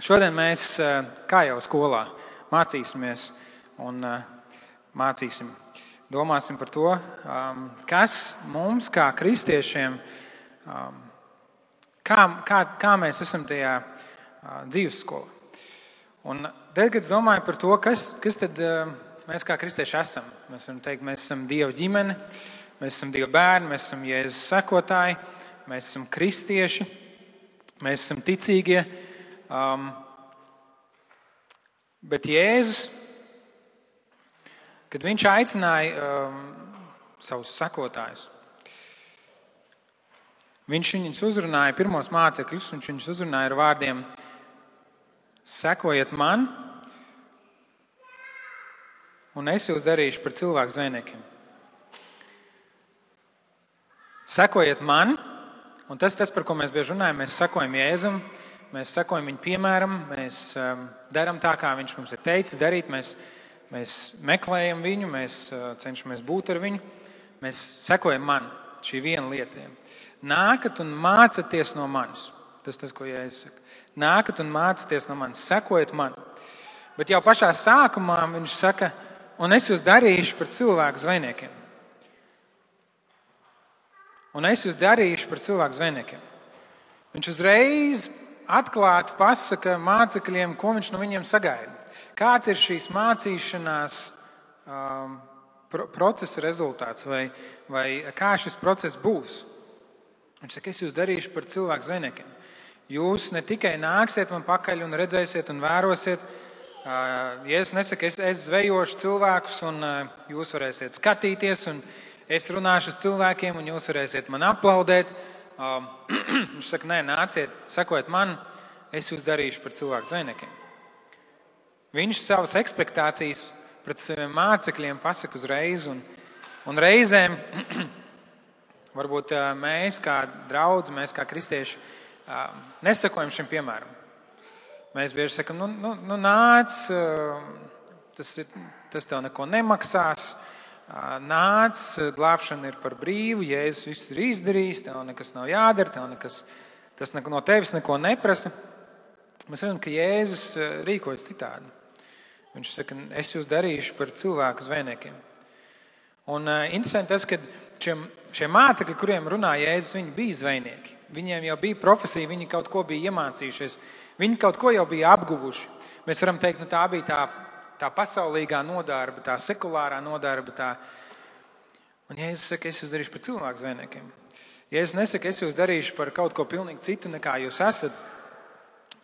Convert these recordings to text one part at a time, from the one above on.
Šodien mēs, kā jau skolā, mācīsimies un domāsim par to, kas mums kā kristiešiem, kā mēs esam tajā dzīvesskolā. Un tad, kad es domāju par to, kas tad mēs kā kristieši esam, mēs varam teikt, mēs esam Dieva ģimene, mēs esam Dieva bērni, mēs esam Jēzus sekotāji, mēs esam kristieši, mēs esam ticīgie. Bet Jēzus, kad viņš aicināja savus sekotājus, viņš viņus uzrunāja, pirmos mācekļus, viņš viņus uzrunāja ar vārdiem: sekojiet man, un es jūs darīšu par cilvēku zvejniekiem. Sekojiet man, un tas, par ko mēs bieži runājam, mēs sekojam Jēzum, mēs sekojam viņa piemēram, mēs darām tā, kā viņš mums ir teicis darīt, mēs meklējam viņu, mēs cenšamies būt ar viņu, mēs sekojam man, šī viena lieta. Nākat un mācaties no manis. Tas, ko Jēzus saka. Nākat un mācaties no manis, sekojiet man. Bet jau pašā sākumā viņš saka, un es jūs darīšu par cilvēku zvejniekiem. Un es jūs darīšu par cilvēku zvejniekiem. Viņš uzreiz atklāti pasaka mācekļiem, ko viņš no viņiem sagaida. Kāds ir šīs mācīšanās procesa rezultāts vai kā šis process būs. Viņš saka, es jūs darīšu par cilvēku zvejniekiem. Jūs ne tikai nāksiet man pakaļ un redzēsiet un vērosiet. Jēzus nesaka, es zvejošu cilvēkus un jūs varēsiet skatīties un es runāšu ar cilvēkiem un jūs varēsiet man aplaudēt. Viņš saka, nē, nāciet, sekojiet man, es jūs darīšu par cilvēku zvejniekiem. Viņš savas ekspektācijas pret saviem mācekļiem pasaka uzreiz, un reizēm varbūt mēs kā draudzi, mēs kā kristieši nesakojam šim piemēram. Mēs bieži sakam, nāc, tas tev neko nemaksās, nāc, glābšana ir par brīvu, Jēzus viss ir izdarījis, tev nekas nav jādara, tas no tevis neko neprasa. Mēs redzam, ka Jēzus rīkojas citādi. Viņš saka, es jūs darīšu par cilvēku zvejniekiem. Un interesanti tas, ka šie mācekļi, kuriem runā Jēzus, viņi bija zvejnieki. Viņiem jau bija profesija, viņi kaut ko bija iemācījušies, viņi kaut ko jau bija apguvuši. Mēs varam teikt, tā bija tā pasaulīgā nodarba, tā sekulārā nodarba. Un Jēzus saka, es jūs darīšu par cilvēku zvejniekiem. Jēzus nesaka, es jūs darīšu par kaut ko pilnīgi citu, nekā jūs esat,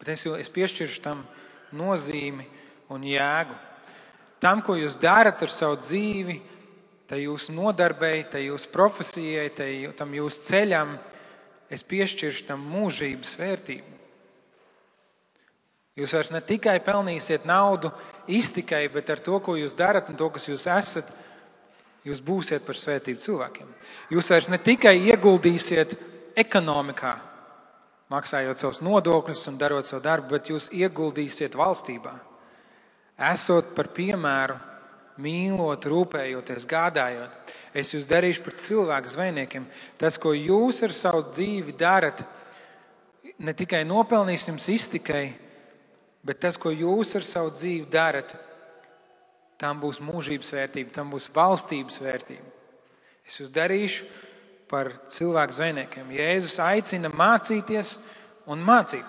bet es piešķiršu tam nozīmi un jēgu. Tam, ko jūs darat ar savu dzīvi, tai jūsu nodarbei, tai jūsu profesijai, tam jūsu ceļam, es piešķiršu tam mūžības vērtību. Jūs vairs ne tikai pelnīsiet naudu iztikai, bet ar to, ko jūs darat un to, kas jūs esat, jūs būsiet par svētību cilvēkiem. Jūs vairs ne tikai ieguldīsiet ekonomikā, maksājot savus nodokļus un darot savu darbu, bet jūs ieguldīsiet valstībā. Esot par piemēru, mīlot, rūpējoties, gādājot. Es jūs darīšu par cilvēku zvejniekiem. Tas, ko jūs ar savu dzīvi darat, ne tikai nopelnīs jums iztikai, bet tas, ko jūs ar savu dzīvi darat, tam būs mūžības vērtība, tam būs valstības vērtība. Es jūs darīšu par cilvēku zvejniekiem. Jēzus aicina mācīties un mācīt.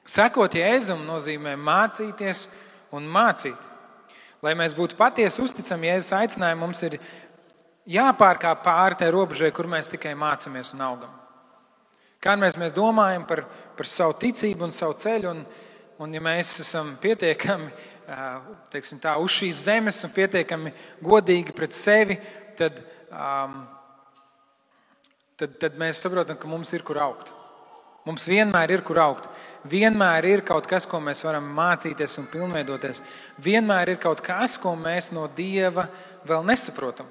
Sekot Jēzum nozīmē mācīties un mācīt. Lai mēs būtu patiesi uzticami Jēzus aicinājumu, mums ir jāpārkāp pāri tai robežai, kur mēs tikai mācamies un augam. Kā mēs domājam par savu ticību un savu ceļu, un ja mēs esam pietiekami uz šīs zemes un pietiekami godīgi pret sevi, tad mēs saprotam, ka mums ir kur augt. Mums vienmēr ir kur augt. Vienmēr ir kaut kas, ko mēs varam mācīties un pilnveidoties. Vienmēr ir kaut kas, ko mēs no Dieva vēl nesaprotam.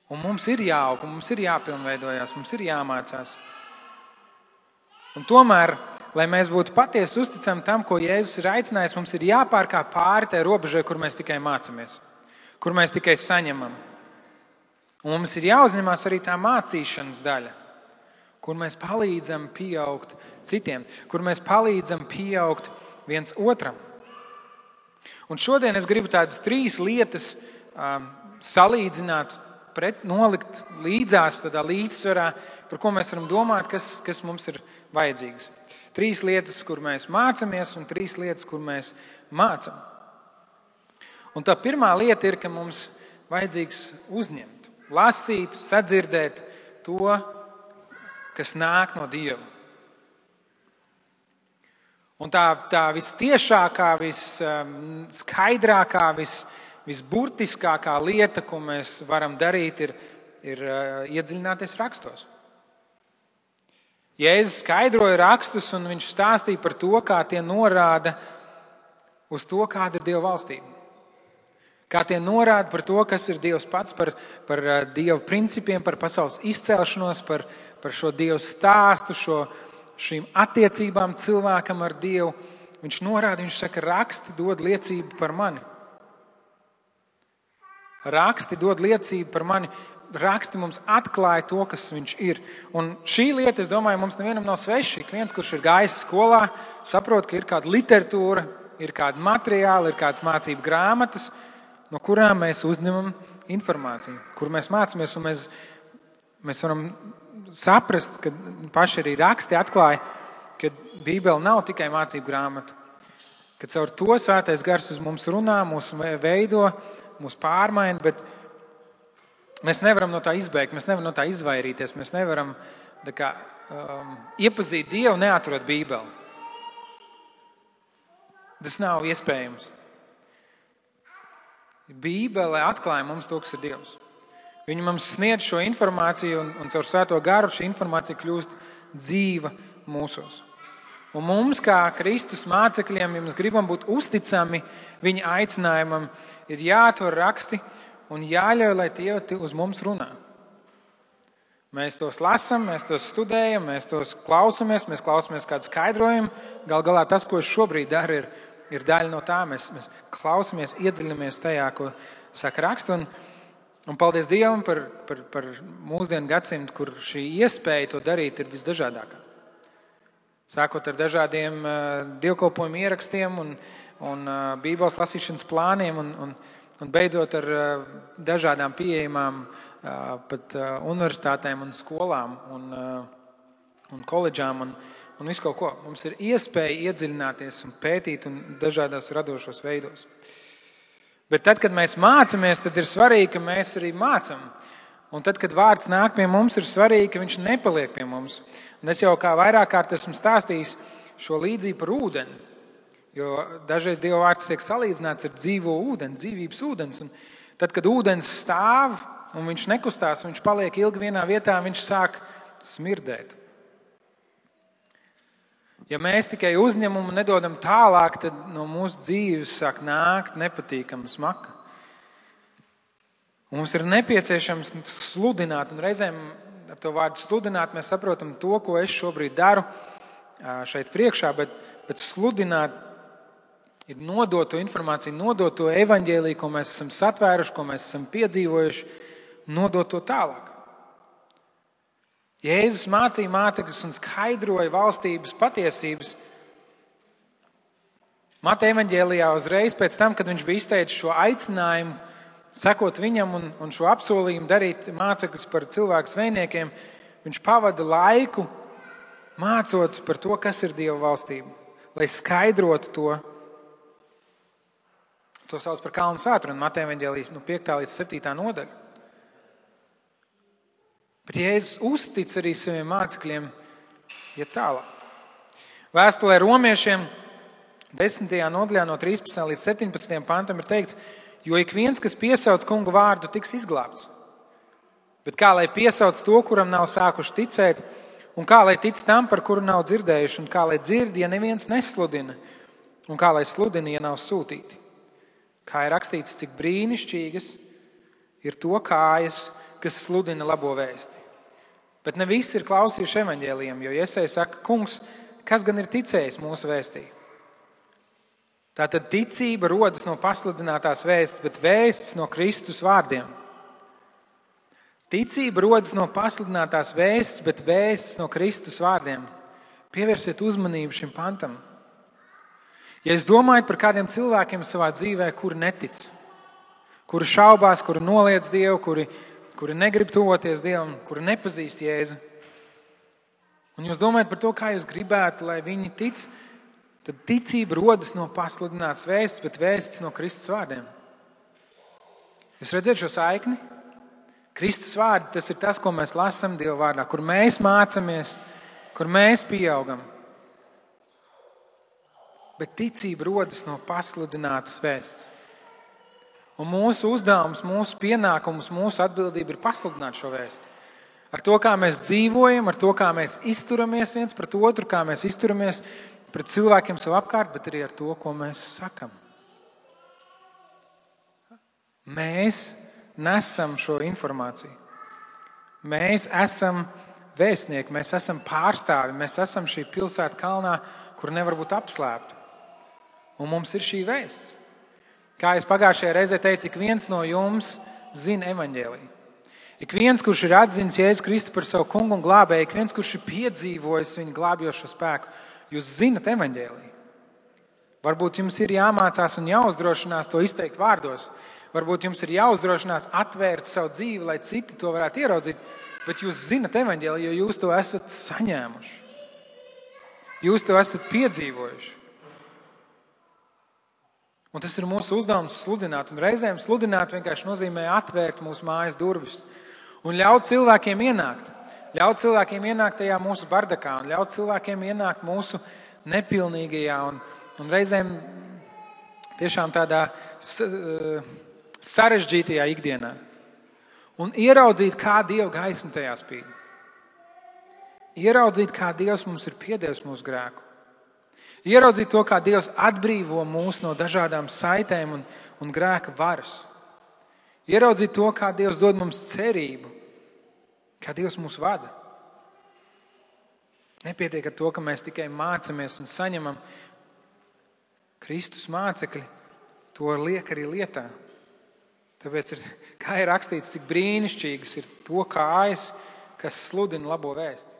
Un mums ir jāaug, mums ir jāpilnveidojās, mums ir jāmācās. Un tomēr, lai mēs būtu patiesi uzticami tam, ko Jēzus ir aicinājis, mums ir jāpārkāp pāri tai robežai, kur mēs tikai mācamies, kur mēs tikai saņemam. Un mums ir jāuzņemās arī tā mācīšanas daļa. kur mēs palīdzam pieaugt citiem, kur mēs palīdzam pieaugt viens otram. Un šodien es gribu tādas 3 lietas salīdzināt, nolikt līdzās, tādā līdzsvarā, par ko mēs varam domāt, kas mums ir vajadzīgs. 3 lietas, kur mēs mācamies, un 3 lietas, kur mēs mācam. Un tā pirmā lieta ir, ka mums vajadzīgs uzņemt, lasīt, sadzirdēt to, kas nāk no Dieva. Un tā vistiešākā, visskaidrākā, visburtiskākā lieta, ko mēs varam darīt, ir iedziļināties rakstos. Jēzus skaidroja rakstus, un viņš stāstīja par to, kā tie norāda uz to, kāda ir Dieva valstība. Kā tie norāda par to, kas ir Dievs pats, par Dieva principiem, par pasaules izcelšanos, par šo Dieva stāstu, šīm attiecībām cilvēkam ar Dievu. Viņš norāda, viņš saka, raksti dod liecību par mani. Raksti dod liecību par mani. Raksti mums atklāja to, kas viņš ir. Un šī lieta, es domāju, mums nevienam nav sveša. Ik viens, kurš ir gājis skolā, saprot, ka ir kāda literatūra, ir kāda materiāla, ir kādas mācību grāmatas, no kurām mēs uzņemam informāciju, kur mēs mācāmies, un mēs varam saprast, ka paši arī raksti atklāja, ka Bībele nav tikai mācību grāmata, ka caur to Svētais Gars uz mums runā, mūs veido, mūs pārmaina, bet mēs nevaram no tā izbēgt, mēs nevaram no tā izvairīties, mēs nevaram iepazīt Dievu, neatrot Bībeli. Tas nav iespējams. Bībele atklāja mums to, kas ir Dievs. Viņa mums sniedz šo informāciju, un caur Svēto Garu šī informācija kļūst dzīva mūsos. Un mums, kā Kristus mācekļiem, ja mēs gribam būt uzticami viņa aicinājumam, ir jāatver raksti un jāļauj, lai tie uz mums runā. Mēs tos lasam, mēs tos studējam, mēs tos klausamies, mēs klausamies kādu skaidrojumu. Gal galā tas, ko es šobrīd daru, ir daļa no tā. Mēs klausamies, iedziļinamies tajā, ko saka raksts. Un paldies Dievam par mūsdienu gadsimtu, kur šī iespēja to darīt ir visdažādākā. Sākot ar dažādiem dievkalpojumu ierakstiem un Bībeles lasīšanas plāniem un beidzot ar dažādām pieejamām pat universitātēm un skolām un koledžām un visu kaut ko. Mums ir iespēja iedziļināties un pētīt un dažādos radošos veidos. Bet tad, kad mēs mācāmies, tad ir svarīgi, ka mēs arī mācam. Un tad, kad vārds nāk pie mums, ir svarīgi, ka viņš nepaliek pie mums. Un es jau kā vairāk kārt esmu stāstījis šo līdzību par ūdeni. Jo dažreiz Dieva vārds tiek salīdzināts ar dzīvo ūdeni, dzīvības ūdens. Un tad, kad ūdens stāv un viņš nekustās, un viņš paliek ilgi vienā vietā, viņš sāk smirdēt. Ja mēs tikai uzņemam un nedodam tālāk, tad no mūsu dzīves sāk nākt nepatīkama smaka. Un mums ir nepieciešams sludināt, un reizēm ar to vārdu sludināt mēs saprotam to, ko es šobrīd daru šeit priekšā, bet sludināt ir nodot to informāciju, nodot to evaņģēliju, ko mēs esam satvēruši, ko mēs esam piedzīvojuši, nodot to tālāk. Jēzus mācīja mācekļus un skaidroja valstības patiesības. Mateja evaņģēlijā uzreiz pēc tam, kad viņš bija izteicis šo aicinājumu, sekot viņam un šo apsolījumu darīt mācekļus par cilvēku sveiniekiem, viņš pavada laiku mācot par to, kas ir Dieva valstība, lai skaidrotu to. To sauc par kalnu svētru, un Mateja evaņģēlijā 5. līdz 7. nodaļa. Bet Jēzus uztic arī saviem mācekļiem iet tālāk. Vēstulē romiešiem 10. nodaļā no 13. līdz 17. pantam ir teikts, jo ik viens, kas piesauc kunga vārdu, tiks izglābts. Bet kā lai piesauc to, kuram nav sākuši ticēt, un kā lai tic tam, par kuru nav dzirdējuši, un kā lai dzird, ja neviens nesludina, un kā lai sludina, ja nav sūtīti. Kā ir rakstīts, cik brīnišķīgas ir to kājas, kas sludina labo vēsti. Bet ne visi ir klausījuši evaņģēlijam, jo Jesaja saka, kungs, kas gan ir ticējis mūsu vēstī? Tātad ticība rodas no pasludinātās vēstis, bet vēstis no Kristus vārdiem. Ticība rodas no pasludinātās vēsts, bet vēsts no Kristus vārdiem. Pievērsiet uzmanību šim pantam. Ja jūs domājat par kādiem cilvēkiem savā dzīvē, kuri netic, kuri šaubās, kuri noliedz Dievu, kuri negrib tuvoties Dievam, kuri nepazīst Jēzu, un jūs domājat par to, kā jūs gribētu, lai viņi tic, tad ticība rodas no pasludinātas vēsts, bet vēsts no Kristus vārdiem. Jūs redzat šo saikni? Kristus vārdi, tas ir tas, ko mēs lasām Dieva vārdā, kur mēs mācāmies, kur mēs pieaugam. Bet ticība rodas no pasludinātas vēsts. Un mūsu uzdevums, mūsu pienākums, mūsu atbildība ir pasludināt šo vēstu. Ar to, kā mēs dzīvojam, ar to, kā mēs izturamies viens pret otru, kā mēs izturamies pret cilvēkiem sev apkārt, bet arī ar to, ko mēs sakam. Mēs nesam šo informāciju. Mēs esam vēstnieki, mēs esam pārstāvi, mēs esam šī pilsēta kalnā, kur nevar būt apslēpta. Un mums ir šī vēsts. Kā es pagājušajā reizē teicu, ik viens no jums zina evaņģēliju. Ik viens, kurš ir atzinis Jēzu Kristu par savu kungu un glābēju, ik viens, kurš ir piedzīvojis viņa glābjošo spēku, jūs zinat evaņģēliju. Varbūt jums ir jāmācās un jāuzdrošinās to izteikt vārdos. Varbūt jums ir jāuzdrošinās atvērt savu dzīvi, lai citi to varētu ieraudzīt, bet jūs zinat evaņģēliju, jo jūs to esat saņēmuši. Jūs to esat piedzīvojuši. Un tas ir mūsu uzdevums sludināt. Un reizēm sludināt vienkārši nozīmē atvērt mūsu mājas durvis un ļaut cilvēkiem ienākt. Ļaut cilvēkiem ienākt tajā mūsu bardakā un ļaut cilvēkiem ienākt mūsu nepilnīgajā un reizēm tiešām tādā sarežģītajā ikdienā. Un ieraudzīt, kā Dieva gaisma tajā spīd. Ieraudzīt, kā Dievs mums ir piedevis mūsu grēku. Ieraudzīt to, kā Dievs atbrīvo mūs no dažādām saitēm un grēka varas. Ieraudzīt to, kā Dievs dod mums cerību, kā Dievs mūs vada. Nepietiek ar to, ka mēs tikai mācamies un saņemam Kristus mācekļi, to liek arī lietā. Tāpēc, kā ir rakstīts, cik brīnišķīgas ir to kājas, kas sludina labo vēsti.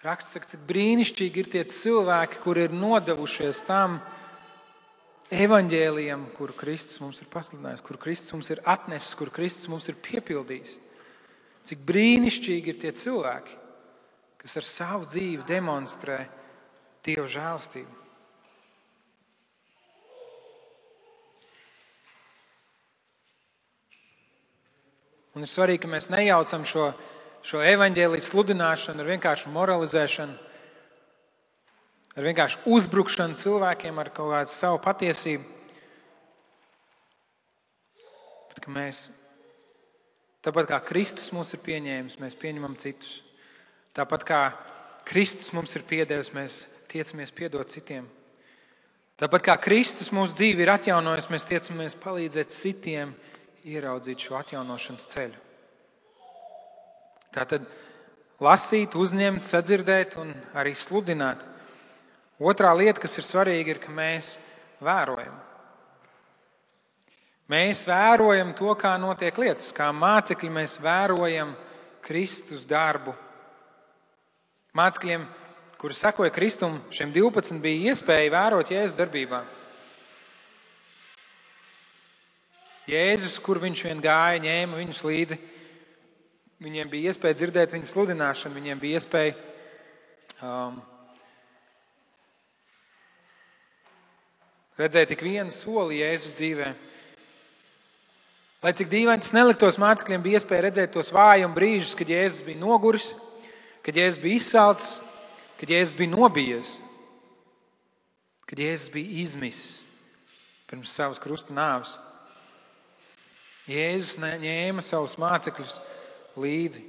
Raksts saka, cik brīnišķīgi ir tie cilvēki, kuri ir nodevušies tam evaņģēlijam, kuru Kristus mums ir pasludinājis, kuru Kristus mums ir atnesis, kuru Kristus mums ir piepildījis. Cik brīnišķīgi ir tie cilvēki, kas ar savu dzīvi demonstrē Dieva žēlstību. Un ir svarīgi, ka mēs nejaucam šo evaņģēliju sludināšanu ar vienkāršu moralizēšanu, ar vienkāršu uzbrukšanu cilvēkiem ar kaut kādu savu patiesību. Bet ka mēs, tāpat kā Kristus mūs ir pieņēmis, mēs pieņemam citus. Tāpat kā Kristus mums ir piedevis, mēs tiecamies piedot citiem. Tāpat kā Kristus mūsu dzīvi ir atjaunojis, mēs tiecamies palīdzēt citiem ieraudzīt šo atjaunošanas ceļu. Tātad lasīt, uzņemt, sadzirdēt un arī sludināt. Otrā lieta, kas ir svarīga, ir, ka mēs vērojam. Mēs vērojam to, kā notiek lietas. Kā mācekļi mēs vērojam Kristus darbu. Mācekļiem, kuri sekoja Kristum, šiem 12 bija iespēja vērot Jēzus darbībā. Jēzus, kur viņš vien gāja, ņēma viņus līdzi. Viņiem bija iespēja dzirdēt viņa sludināšanu, viņiem bija iespēja redzēt tik vienu soli Jēzus dzīvē. Lai cik dīvaini tas neliktos, mācekļiem bija iespēja redzēt tos vājuma brīžus, kad Jēzus bija noguris, kad Jēzus bija izsalcis, kad Jēzus bija nobijies, kad Jēzus bija izmisis pirms savas krusta nāves. Jēzus ņēma savus mācekļus līdzi.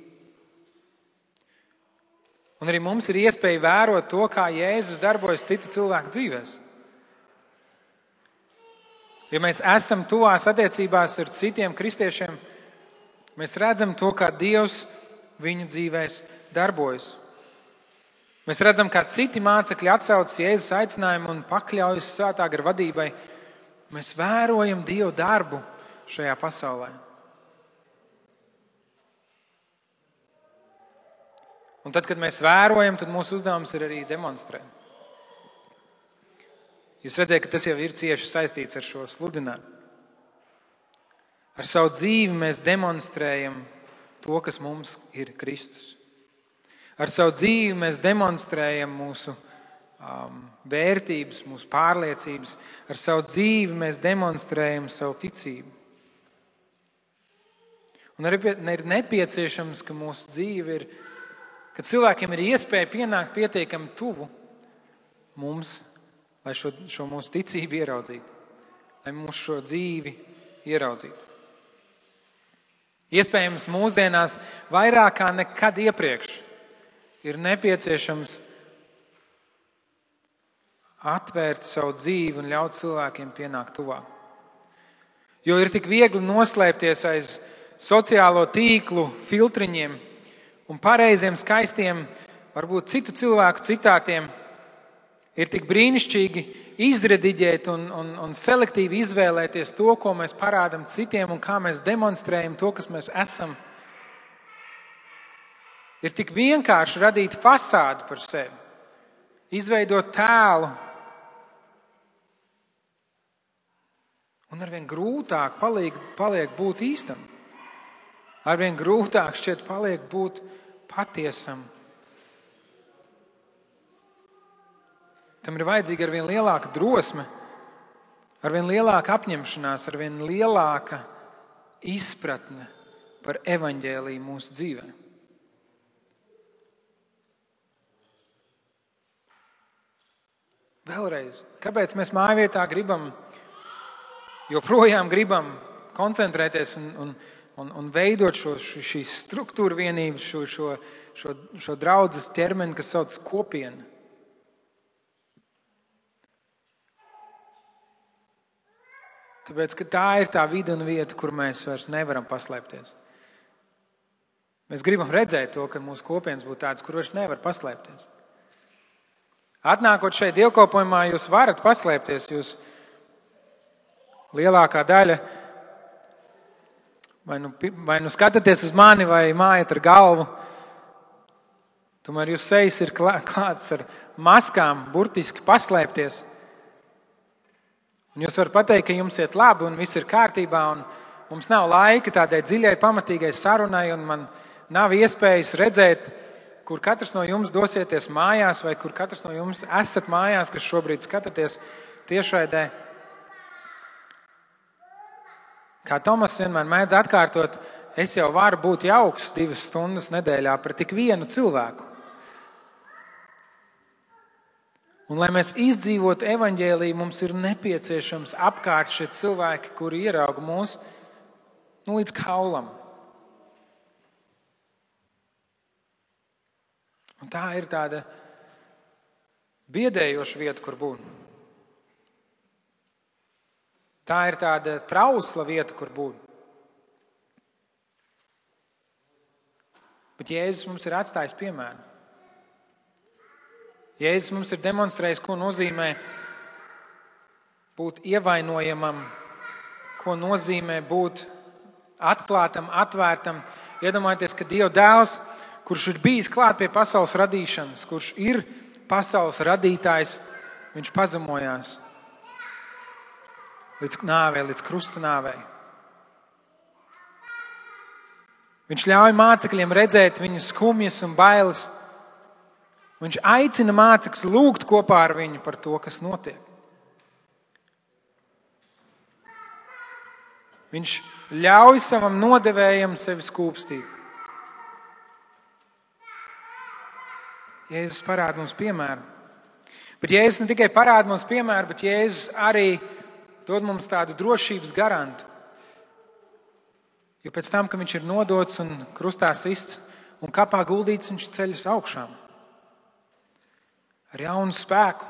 Un arī mums ir iespēja vērot to, kā Jēzus darbojas citu cilvēku dzīvēs. Ja mēs esam tuvās attiecībās ar citiem kristiešiem, mēs redzam to, kā Dievs viņu dzīvēs darbojas. Mēs redzam, kā citi mācekļi atsaucas Jēzus aicinājumu un pakļaujas svētā gara vadībai. Mēs vērojam Dievu darbu šajā pasaulē. Un tad, kad mēs vērojam, tad mūsu uzdevums ir arī demonstrēt. Jūs redzat, ka tas jau ir cieši saistīts ar šo sludinājumu. Ar savu dzīvi mēs demonstrējam to, kas mums ir Kristus. Ar savu dzīvi mēs demonstrējam mūsu vērtības, mūsu pārliecības. Ar savu dzīvi mēs demonstrējam savu ticību. Un arī ir nepieciešams, ka mūsu dzīve ir, ka cilvēkiem ir iespēja pienākt pietiekami tuvu mums, lai šo mūsu ticību ieraudzītu, lai mūsu šo dzīvi ieraudzītu. Iespējams, mūsdienās vairāk kā nekad iepriekš ir nepieciešams atvērt savu dzīvi un ļaut cilvēkiem pienākt tuvāk. Jo ir tik viegli noslēpties aiz sociālo tīklu filtriņiem un pareiziem, skaistiem, varbūt citu cilvēku citātiem. Ir tik brīnišķīgi izrediģēt un selektīvi izvēlēties to, ko mēs parādam citiem un kā mēs demonstrējam to, kas mēs esam. Ir tik vienkārši radīt fasādi par sevi, izveidot tēlu. Un arvien grūtāk paliek būt īstam. Arvien grūtāk šķiet paliek būt patiesam. Tam ir vajadzīga arvien lielāka drosme, arvien lielāka apņemšanās, arvien lielāka izpratne par evaņģēliju mūsu dzīvē. Vēlreiz, kāpēc mēs mājvietā joprojām gribam koncentrēties un veidot šīs struktūra vienības, šo draudzes ķermeni, kas sauc kopiena? Tāpēc, ka tā ir tā vide un vieta, kur mēs vairs nevaram paslēpties. Mēs gribam redzēt to, ka mūsu kopienas būtu tādas, kur vairs nevar paslēpties. Atnākot šeit dievkalpojumā, jūs varat paslēpties. Jūs lielākā daļa vai nu skatāties uz mani, vai mājat ar galvu. Tomēr jūs sejas ir klāts ar maskām, burtiski paslēpties. Un jūs varat pateikt, ka jums iet labi un viss ir kārtībā, un mums nav laika tādai dziļai, pamatīgai sarunai, un man nav iespējas redzēt, kur katrs no jums dosieties mājās, vai kur katrs no jums esat mājās, kas šobrīd skatāties tiešraidē. Kā Tomas vienmēr mēdz atkārtot, es jau varu būt jauks 2 stundas nedēļā par tik vienu cilvēku. Un, lai mēs izdzīvotu evaņģēliju, mums ir nepieciešams apkārt šie cilvēki, kuri ierauga mūs līdz kaulam. Un tā ir tāda biedējoša vieta, kur būt. Tā ir tāda trausla vieta, kur būt. Bet Jēzus mums ir atstājis piemēru. Jēzus mums ir demonstrējis, ko nozīmē būt ievainojamam, ko nozīmē būt atklātam, atvērtam. Iedomājieties, ka Dieva dēls, kurš ir bijis klāt pie pasaules radīšanas, kurš ir pasaules radītājs, viņš pazemojās līdz nāvei, līdz krusta nāvei. Viņš ļauj mācekļiem redzēt viņu skumjas un bailes. Viņš aicina mācekļus lūgt kopā ar viņu par to, kas notiek. Viņš ļauj savam nodevējam sevi skūpstīt. Jēzus parāda mums piemēru. Bet Jēzus ne tikai parāda mums piemēru, bet Jēzus arī dod mums tādu drošības garantu. Jo pēc tam, ka viņš ir nodots un krustā sists un kapā guldīts, viņš ceļas augšām. Ar jaunu spēku.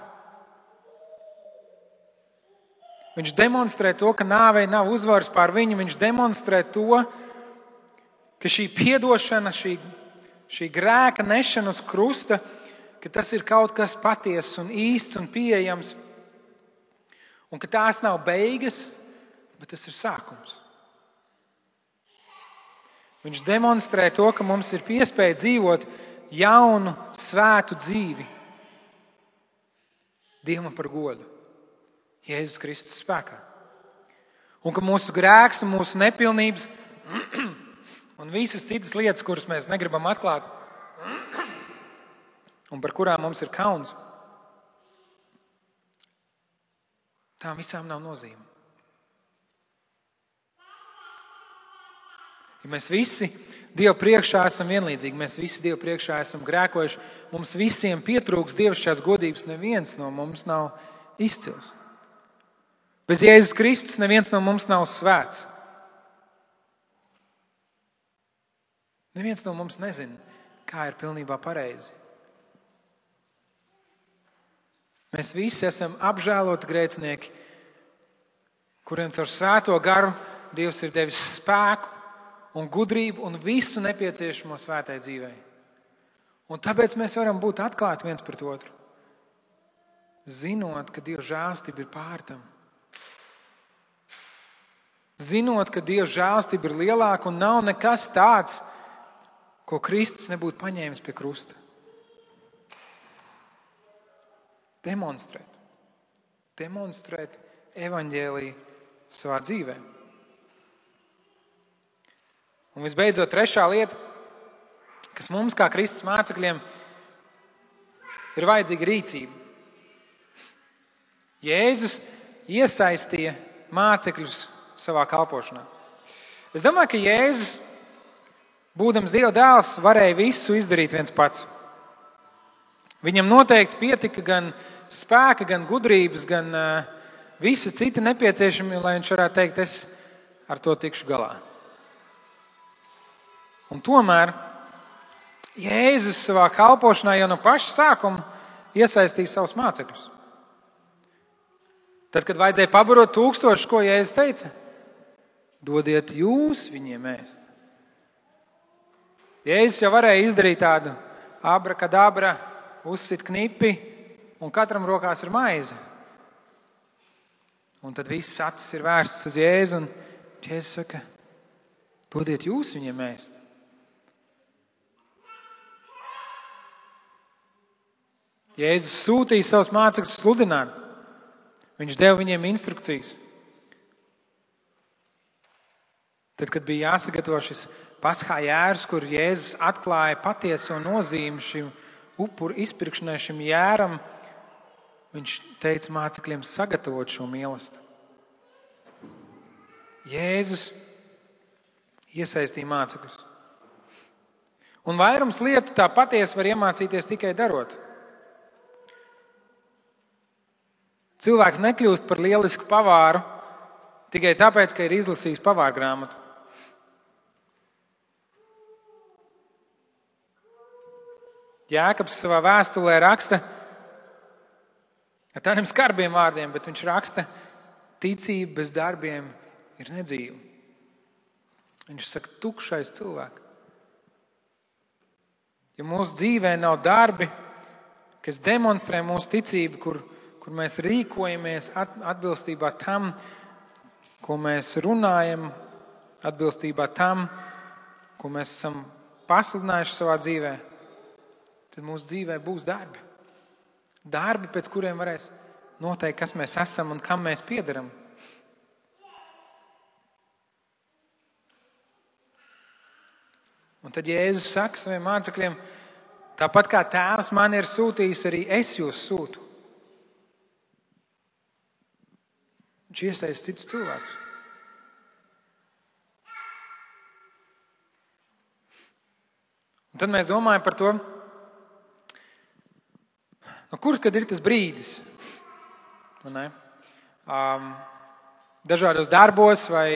Viņš demonstrē to, ka nāvei nav uzvaras pār viņu. Viņš demonstrē to, ka šī piedošana, šī grēka nešana uz krusta, ka tas ir kaut kas patiess un īsts un pieejams. Un ka tās nav beigas, bet tas ir sākums. Viņš demonstrē to, ka mums ir iespēja dzīvot jaunu, svētu dzīvi Dievam par godu Jēzus Kristus spēkā. Un ka mūsu grēks un mūsu nepilnības un visas citas lietas, kuras mēs negribam atklāt un par kurām mums ir kauns, tām visām nav nozīme. Ja mēs visi Dievu priekšā esam vienlīdzīgi, mēs visi Dievu priekšā esam grēkojuši, mums visiem pietrūks dievišķās godības, neviens no mums nav izcils. Bez Jēzus Kristus neviens no mums nav svēts. Neviens no mums nezina, kā ir pilnībā pareizi. Mēs visi esam apžēloti grēcinieki, kuriem caur svēto garu Dievs ir devis spēku un gudrību un visu nepieciešamo svētai dzīvei. Un tāpēc mēs varam būt atklāti viens pret otru, zinot, ka Dieva žēlstība ir pār tam. Zinot, ka Dieva žēlstība ir lielāka un nav nekas tāds, ko Kristus nebūtu paņēmis pie krusta. Demonstrēt evaņģēliju savā dzīvē. Un visbeidzot, trešā lieta, kas mums kā Kristus mācekļiem ir vajadzīga rīcība. Jēzus iesaistīja mācekļus savā kalpošanā. Es domāju, ka Jēzus, būdams Dieva dēls, varēja visu izdarīt viens pats. Viņam noteikti pietika gan spēka, gan gudrības, gan visa cita nepieciešama, lai viņš varētu teikt, es ar to tikšu galā. Un tomēr Jēzus savā kalpošanā jau no paša sākuma iesaistīja savus mācekļus. Tad, kad vajadzēja pabarot 1000, ko Jēzus teica? Dodiet jūs viņiem ēst. Jēzus jau varēja izdarīt tādu abrakadabra, uzsit knipi un katram rokās ir maize. Un tad viss acis ir vērsts uz Jēzu un Jēzus saka, dodiet jūs viņiem ēst. Jēzus sūtīja savus mācekļus sludināt. Viņš deva viņiem instrukcijas. Tad, kad bija jāsagatavo šis Paskā jērs, kur Jēzus atklāja patieso nozīmi šim upuru izpirkšanai, šim jēram, viņš teica mācekļiem sagatavot šo mīlestību. Jēzus iesaistīja mācekļus. Un vairums lietu tā patiesi var iemācīties tikai darot. Cilvēks nekļūst par lielisku pavāru tikai tāpēc, ka ir izlasījis pavāra grāmatu. Jēkabs savā vēstulē raksta ar tādiem skarbiem vārdiem, bet viņš raksta, ticība bez darbiem ir nedzīva. Viņš saka, tukšais cilvēks. Ja mūsu dzīvē nav darbi, kas demonstrē mūsu ticību, kur mēs rīkojamies atbilstībā tam, ko mēs runājam, atbilstībā tam, ko mēs esam pasludinājuši savā dzīvē, tad mūsu dzīvē būs darbi. Darbi, pēc kuriem varēs noteikt, kas mēs esam un kam mēs piederam. Un tad Jēzus saka saviem mācekļiem, tāpat kā Tēvs man ir sūtījis, arī es jūs sūtu. Viņš iesaista citus cilvēkus. Un tad mēs domājam par to, kur tad ir tas brīdis? Dažādos darbos vai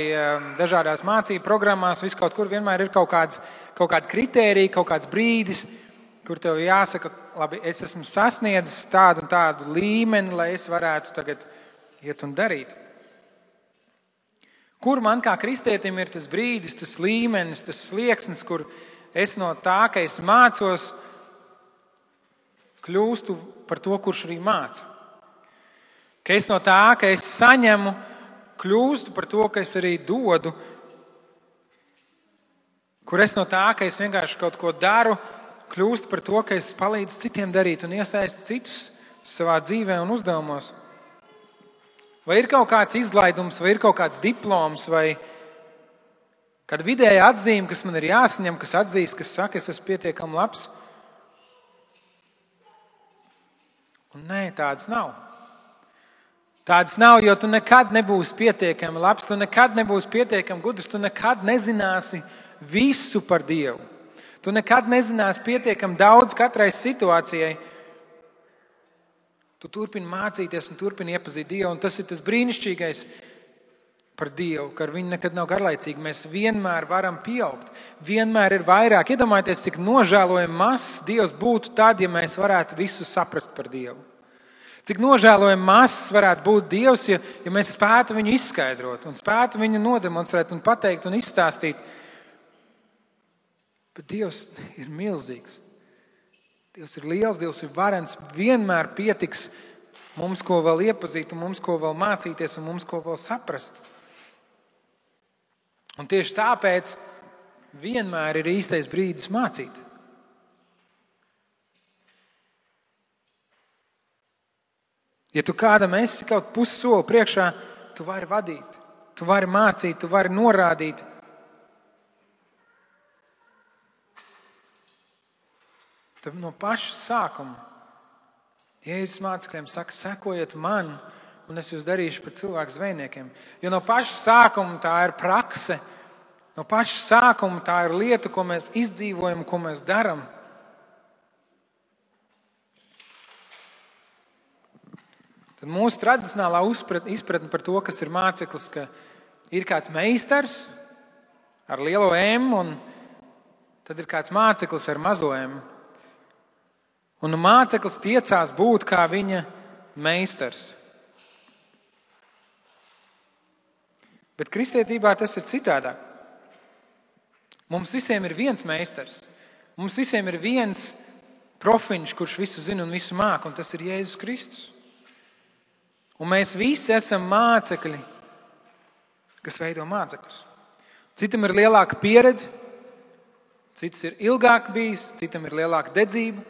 dažādās mācību programmās, vis kaut kur vienmēr ir kaut kāda kritērija, kaut kāds brīdis, kur tev jāsaka, labi, es esmu sasniedzis tādu un tādu līmeni, lai es varētu tagad iet un darīt. Kur man kā kristietim ir tas brīdis, tas līmenis, tas slieksnis, kur es no tā, ka es mācos, kļūstu par to, kurš arī māca. Ka es no tā, ka es saņemu, kļūstu par to, ka es arī dodu. Kur es no tā, ka es vienkārši kaut ko daru, kļūst par to, ka es palīdzu citiem darīt un iesaistu citus savā dzīvē un uzdevumos. Vai ir kaut kāds izlaidums, vai ir kaut kāds diploms, vai kāda vidēja atzīme, kas man ir jāsaņem, kas atzīst, kas saka, es esmu pietiekami labs? Un nē, tādas nav. Tādas nav, jo tu nekad nebūsi pietiekami labs, tu nekad nebūsi pietiekami gudrs, tu nekad nezināsi visu par Dievu. Tu nekad nezināsi pietiekami daudz katrai situācijai. Tu turpini mācīties un turpini iepazīt Dievu, un tas ir tas brīnišķīgais par Dievu, ka ar viņu nekad nav garlaicīgi. Mēs vienmēr varam pieaugt, vienmēr ir vairāk. Iedomājieties, cik nožēlojami mazs Dievs būtu tad, ja mēs varētu visu saprast par Dievu. Cik nožēlojami mazs varētu būt Dievs, ja mēs spētu viņu izskaidrot un spētu viņu nodemonstrēt un pateikt un izstāstīt. Bet Dievs ir milzīgs. Dievs ir liels, Dievs ir varens. Vienmēr pietiks mums, ko vēl iepazīt, un mums, ko vēl mācīties, un mums, ko vēl saprast. Un tieši tāpēc vienmēr ir īstais brīdis mācīt. Ja tu kādam esi kaut pussoli priekšā, tu vari vadīt, tu vari mācīt, tu vari norādīt. Tad no paša sākuma Jēzus mācekļiem saka, sekojiet man, un es jūs darīšu par cilvēku zvejniekiem. Jo no paša sākuma tā ir prakse, no paša sākuma tā ir lieta, ko mēs izdzīvojam, ko mēs darām. Tad mūsu tradicionālā izpratne par to, kas ir māceklis, ka ir kāds meistars ar lielo M, un tad ir kāds māceklis ar mazo M. Un māceklis tiecās būt kā viņa meistars. Bet kristietībā tas ir citādāk. Mums visiem ir viens meistars. Mums visiem ir viens profiņš, kurš visu zina un visu māk, un tas ir Jēzus Kristus. Un mēs visi esam mācekļi, kas veido mācekļus. Citam ir lielāka pieredze, cits ir ilgāk bijis, citam ir lielāka dedzība,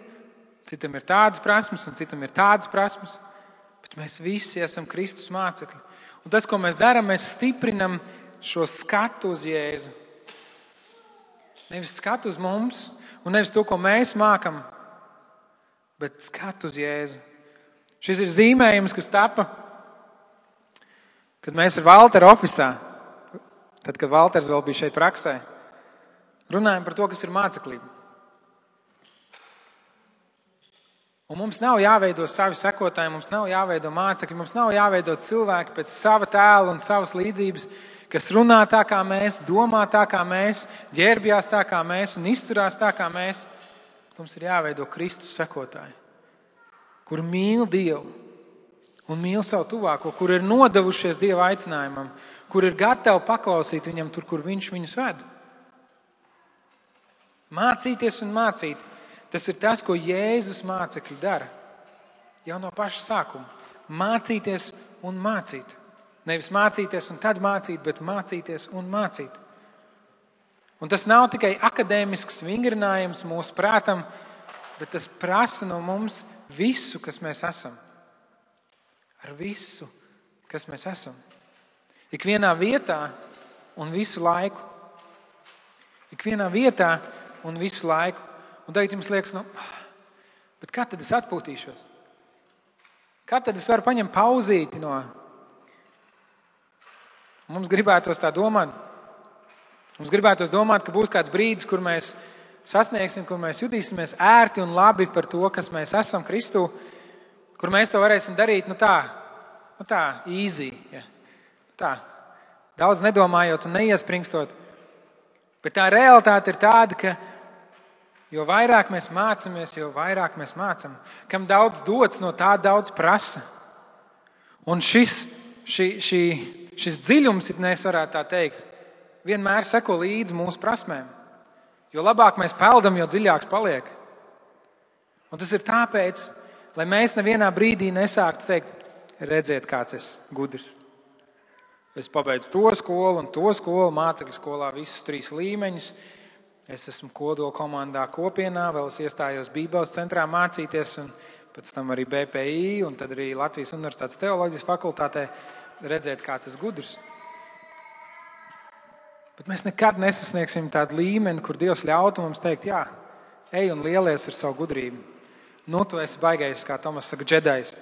citam ir tādas prasmes un citam ir tādas prasmes, bet mēs visi esam Kristus mācekļi. Un tas, ko mēs darām, mēs stiprinam šo skatu uz Jēzu. Nevis skatu uz mums un nevis to, ko mēs mākam, bet skatu uz Jēzu. Šis ir zīmējums, kas tapa, kad mēs ar Valteru ofisā, tad, kad Valters vēl bija šeit praksē, runājam par to, kas ir māceklība. Un mums nav jāveido savi sekotāji, mums nav jāveido mācekļi, mums nav jāveido cilvēki pēc sava tēla un savas līdzības, kas runā tā kā mēs, domā tā kā mēs, ģērbjās tā kā mēs un izturās tā kā mēs. Mums ir jāveido Kristus sekotāji, kur mīl Dievu un mīl savu tuvāko, kur ir nodevušies Dieva aicinājumam, kur ir gatavi paklausīt viņam tur, kur viņš viņus ved. Mācīties un mācīt. Tas ir tas, ko Jēzus mācekļi dara. Jau no paša sākuma. Mācīties un mācīt. Nevis mācīties un tad mācīt, bet mācīties un mācīt. Un tas nav tikai akadēmisks vingrinājums mūsu prātam, bet tas prasa no mums visu, kas mēs esam. Ar visu, kas mēs esam. Ikvienā vietā un visu laiku. Ikvienā vietā un visu laiku. Un tagad jums liekas, bet kā tad es atpūtīšos? Kā tad es varu paņemt pauzīti no? Mums gribētos tā domāt. Mums gribētos domāt, ka būs kāds brīdis, kur mēs sasniegsim, kur mēs jutīsimies ērti un labi par to, kas mēs esam Kristū, kur mēs to varēsim darīt, tā, easy. Ja. Tā, daudz nedomājot un neiespringstot. Bet tā realitāte ir tāda, ka jo vairāk mēs mācāmies, jo vairāk mēs mācām. Kam daudz dots, no tā daudz prasa. Un šis dziļums, ja mēs varētu tā teikt, vienmēr seko līdzi mūsu prasmēm. Jo labāk mēs peldam, jo dziļāks paliek. Un tas ir tāpēc, lai mēs nevienā brīdī nesāktu teikt, redziet, kāds es gudrs. Es pabeidzu to skolu un to skolu, mācekļu skolā visus 3 līmeņus. Es esmu kodola komandā kopienā, vēl es iestājos Bībeles centrā mācīties, un pēc tam arī BPI, un tad arī Latvijas Universitātes teoloģijas fakultātē redzēt, kāds es gudrs. Bet mēs nekad nesasniegsim tādu līmeni, kur Dievs ļautu mums teikt, jā, ej un lielies ar savu gudrību. Nu, tu esi baigais, kā Tomas saka, džedajs.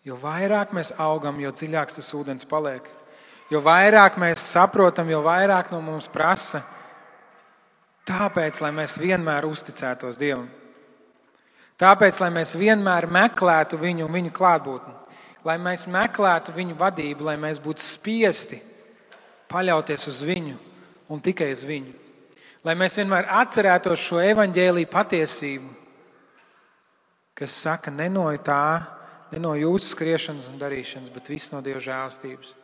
Jo vairāk mēs augam, jo dziļāks tas ūdens paliek. Jo vairāk mēs saprotam, jo vairāk no mums prasa. Tāpēc, lai mēs vienmēr uzticētos Dievam. Tāpēc, lai mēs vienmēr meklētu viņu un viņu klātbūtni. Lai mēs meklētu viņu vadību, lai mēs būtu spiesti paļauties uz viņu un tikai uz viņu. Lai mēs vienmēr atcerētos šo evaņģēliju patiesību, kas saka, ne no jūsu skriešanas un darīšanas, bet viss no Dieva žēlastības.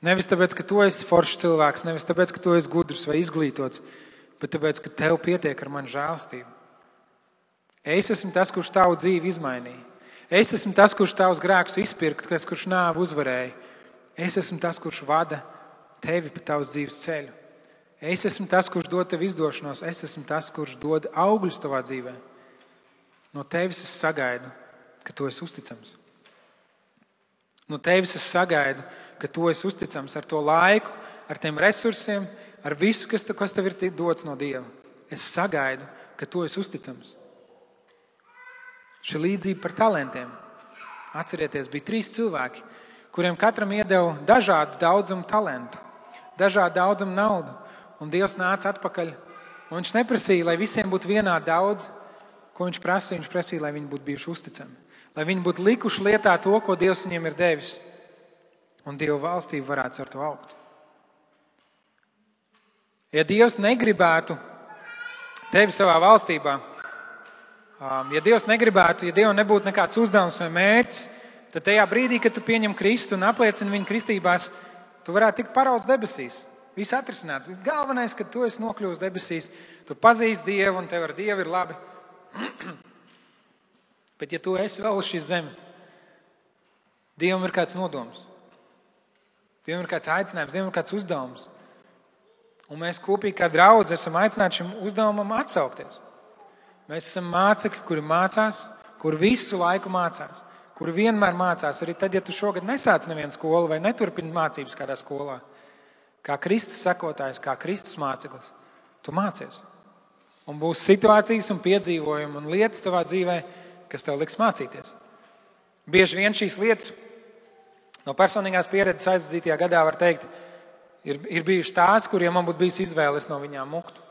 Nevis tāpēc, ka tu esi foršs cilvēks, nevis tāpēc, ka tu esi gudrs vai izglītots, bet tāpēc, ka tev pietiek ar manu žēlastību. Es esmu tas, kurš tavu dzīvi izmainīja. Es esmu tas, kurš tavus grēkus izpirka, tas, kurš nāvi uzvarēja. Es esmu tas, kurš vada tevi pa tavas dzīves ceļu. Es esmu tas, kurš dod tev izdošanos. Es esmu tas, kurš dod augļus tavā dzīvē. No tevis es sagaidu, ka tu esi uzticams. No tevis es sagaidu, ka tu esi uzticams ar to laiku, ar tiem resursiem, ar visu, kas tev ir dots no Dieva. Es sagaidu, ka tu esi uzticams. Šī līdzība par talantiem. Atcerieties, bija 3 cilvēki, kuriem katram iedeva dažādu daudzumu talantu, dažādu daudzumu naudu. Un Dievs nāca atpakaļ. Un viņš neprasīja, lai visiem būtu vienādi daudz, ko viņš prasīja. Viņš prasīja, lai viņi būtu bijuši uzticami. Lai viņi būtu likuši lietā to, ko Dievs viņiem ir devis. Un Dieva valstība varētu ar to augt. Ja Dievs negribētu tevi savā valstībā, ja Dievs negribētu, ja Dievam nebūtu nekāds uzdevums vai mērķis, tad tajā brīdī, kad tu pieņem Kristu un apliecini viņu kristībās, tu varētu tikt parauts debesīs. Viss atrisināts. Galvenais, ka tu esi nokļuvis debesīs, tu pazīsti Dievu un tev ar Dievu ir labi. Bet ja tu esi vēl uz šīs zemes, Dievam ir kāds nodoms. Dievam ir kāds aicinājums, Dievam ir kāds uzdevums. Un mēs kopīgi kā draudzi esam aicināti šim uzdevumam atsaukties. Mēs esam mācekļi, kuri mācās, kuri visu laiku mācās, kuri vienmēr mācās. Arī tad, ja tu šogad nesāc nevienu skolu vai neturpini mācības kādā skolā, kā Kristus sekotājs, kā Kristus māceklis, tu mācies. Un būs situācijas un piedzīvojumi un lietas tavā dzīvē, kas tev liks mācīties. Bieži vien šīs lietas no personīgās pieredzes aizdzītajā gadā var teikt, ir bijuši tās, kuriem man būtu bijis izvēle, es no viņām muktu.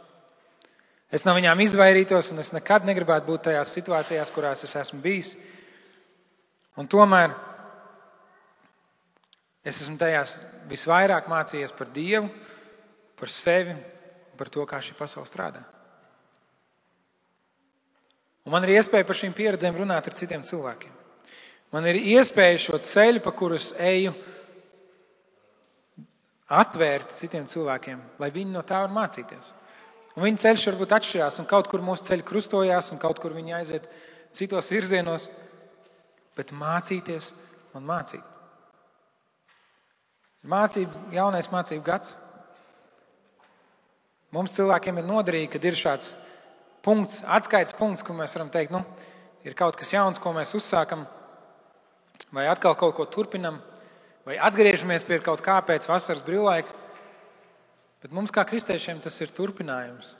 Es no viņām izvairītos un es nekad negribētu būt tajās situācijās, kurās es esmu bijis. Un tomēr es esmu tajās visvairāk mācījies par Dievu, par sevi, par to, kā šī pasaule strādā. Un man ir iespēja par šīm pieredzēm runāt ar citiem cilvēkiem. Man ir iespēja šo ceļu, pa kurus eju, atvērt citiem cilvēkiem, lai viņi no tā var mācīties. Un viņa ceļš varbūt atšķirās, un kaut kur mūsu ceļi krustojās, un kaut kur viņi aiziet citos virzienos, bet mācīties un mācīt. Jaunais mācību gads. Mums cilvēkiem ir noderīgi, kad ir šāds punkts, atskaites punkts, kur mēs varam teikt, ir kaut kas jauns, ko mēs uzsākam, vai atkal kaut ko turpinam, vai atgriežamies pie kaut kā pēc vasaras brīvlaika. Bet mums kā kristiešiem tas ir turpinājums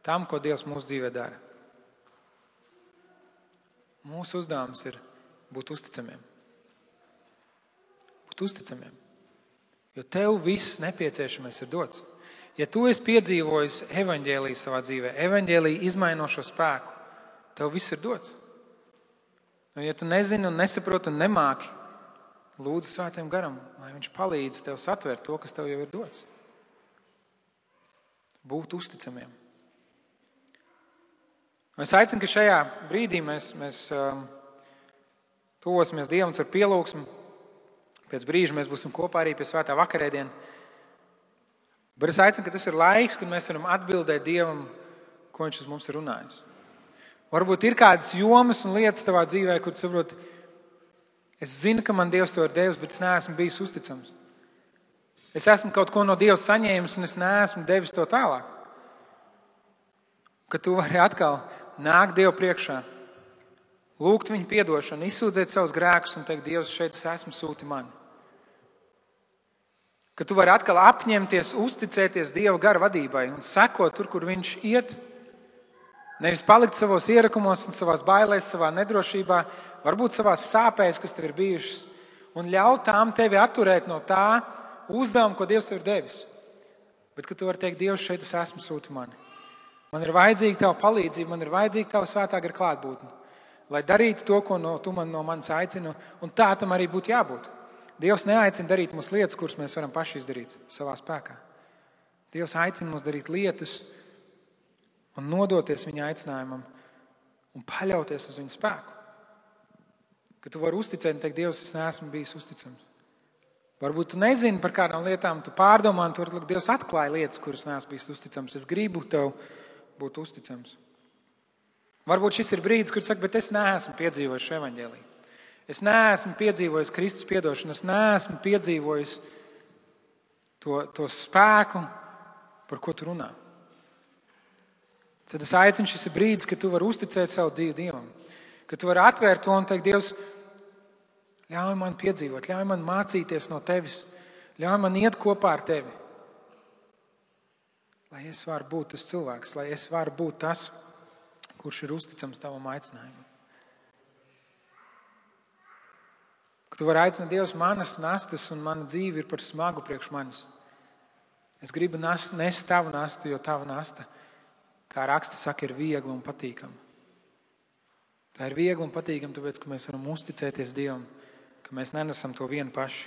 tam, ko Dievs mūsu dzīvē dara. Mūsu uzdevums ir būt uzticamiem. Būt uzticamiem. Jo tev viss nepieciešamais ir dots. Ja tu esi piedzīvojis evaņģēliju savā dzīvē, evaņģēliju izmainošo spēku, tev viss ir dots. Un ja tu nezini un nesaproti un nemāki, lūdzu Svētajam Garam, lai viņš palīdz tev satvērt to, kas tev jau ir dots. Būt uzticamiem. Es aicinu, ka šajā brīdī mēs tuvosimies Dievam ar pielūgsmu. Pēc brīža mēs būsim kopā arī pie svētā vakarēdiena. Bet es aicinu, ka tas ir laiks, kad mēs varam atbildēt Dievam, ko viņš uz mums ir runājis. Varbūt ir kādas jomas un lietas tavā dzīvē, kur tu saproti, es zinu, ka man Dievs to ir devis, bet es neesmu bijis uzticams. Es esmu kaut ko no Dieva saņēmis, un es neesmu devis to tālāk. Ka tu vari atkal nākt Dievu priekšā, lūgt viņa piedošanu, izsūdzēt savus grēkus un teikt, Dievs, šeit es esmu, sūti mani. Ka tu vari atkal apņemties, uzticēties Dieva gara vadībai un sekot tur, kur viņš iet. Nevis palikt savos ierakumos un savās bailēs, savā nedrošībā, varbūt savās sāpēs, kas tev ir bijušas, un ļaut tām tevi atturēt no tā uzdevuma, ko Dievs tev ir devis. Bet ka tu vari teikt, Dievs, šeit es esmu, sūti mani. Man ir vajadzīga tava palīdzība, man ir vajadzīga tava svētā gara klātbūtne, lai darītu to, ko tu no manis aicini, un tā tam arī būtu jābūt. Dievs neaicina darīt mums lietas, kuras mēs varam paši izdarīt savā spēkā. Dievs aicina mums darīt lietas un nodoties viņa aicinājumam un paļauties uz viņa spēku. Ka tu vari uzticēt un teikt, Dievs, es neesmu bijis uzticams. Varbūt tu nezini par kādām lietām, tu pārdomā, un tur Dievs atklāja lietas, kuras neesmu bijis uzticams. Es gribu tev būt uzticams. Varbūt šis ir brīdis, kur tu saki, bet es neesmu piedzīvojis šo evaņģēliju. Es neesmu piedzīvojis Kristus piedošanu, es neesmu piedzīvojis to spēku, par ko tu runā. Tad es aicinu, šis ir brīdis, kad tu vari uzticēt savu dzīvi Dievam. Kad tu vari atvērt to un teikt, Dievs, ļauj man piedzīvot, ļauj man mācīties no tevis, ļauj man iet kopā ar tevi. Lai es varu būt tas cilvēks, lai es varu būt tas, kurš ir uzticams tavam aicinājumam. Ka tu vari aicināt, Dievs, manas nastas un mana dzīve ir par smagu priekš manis. Es gribu nest tavu nastu, jo tava nasta, kā raksta saka, ir viegla un patīkama. Tā ir viegla un patīkama, tāpēc, ka mēs varam uzticēties Dievam, ka mēs nenesam to vienu paši.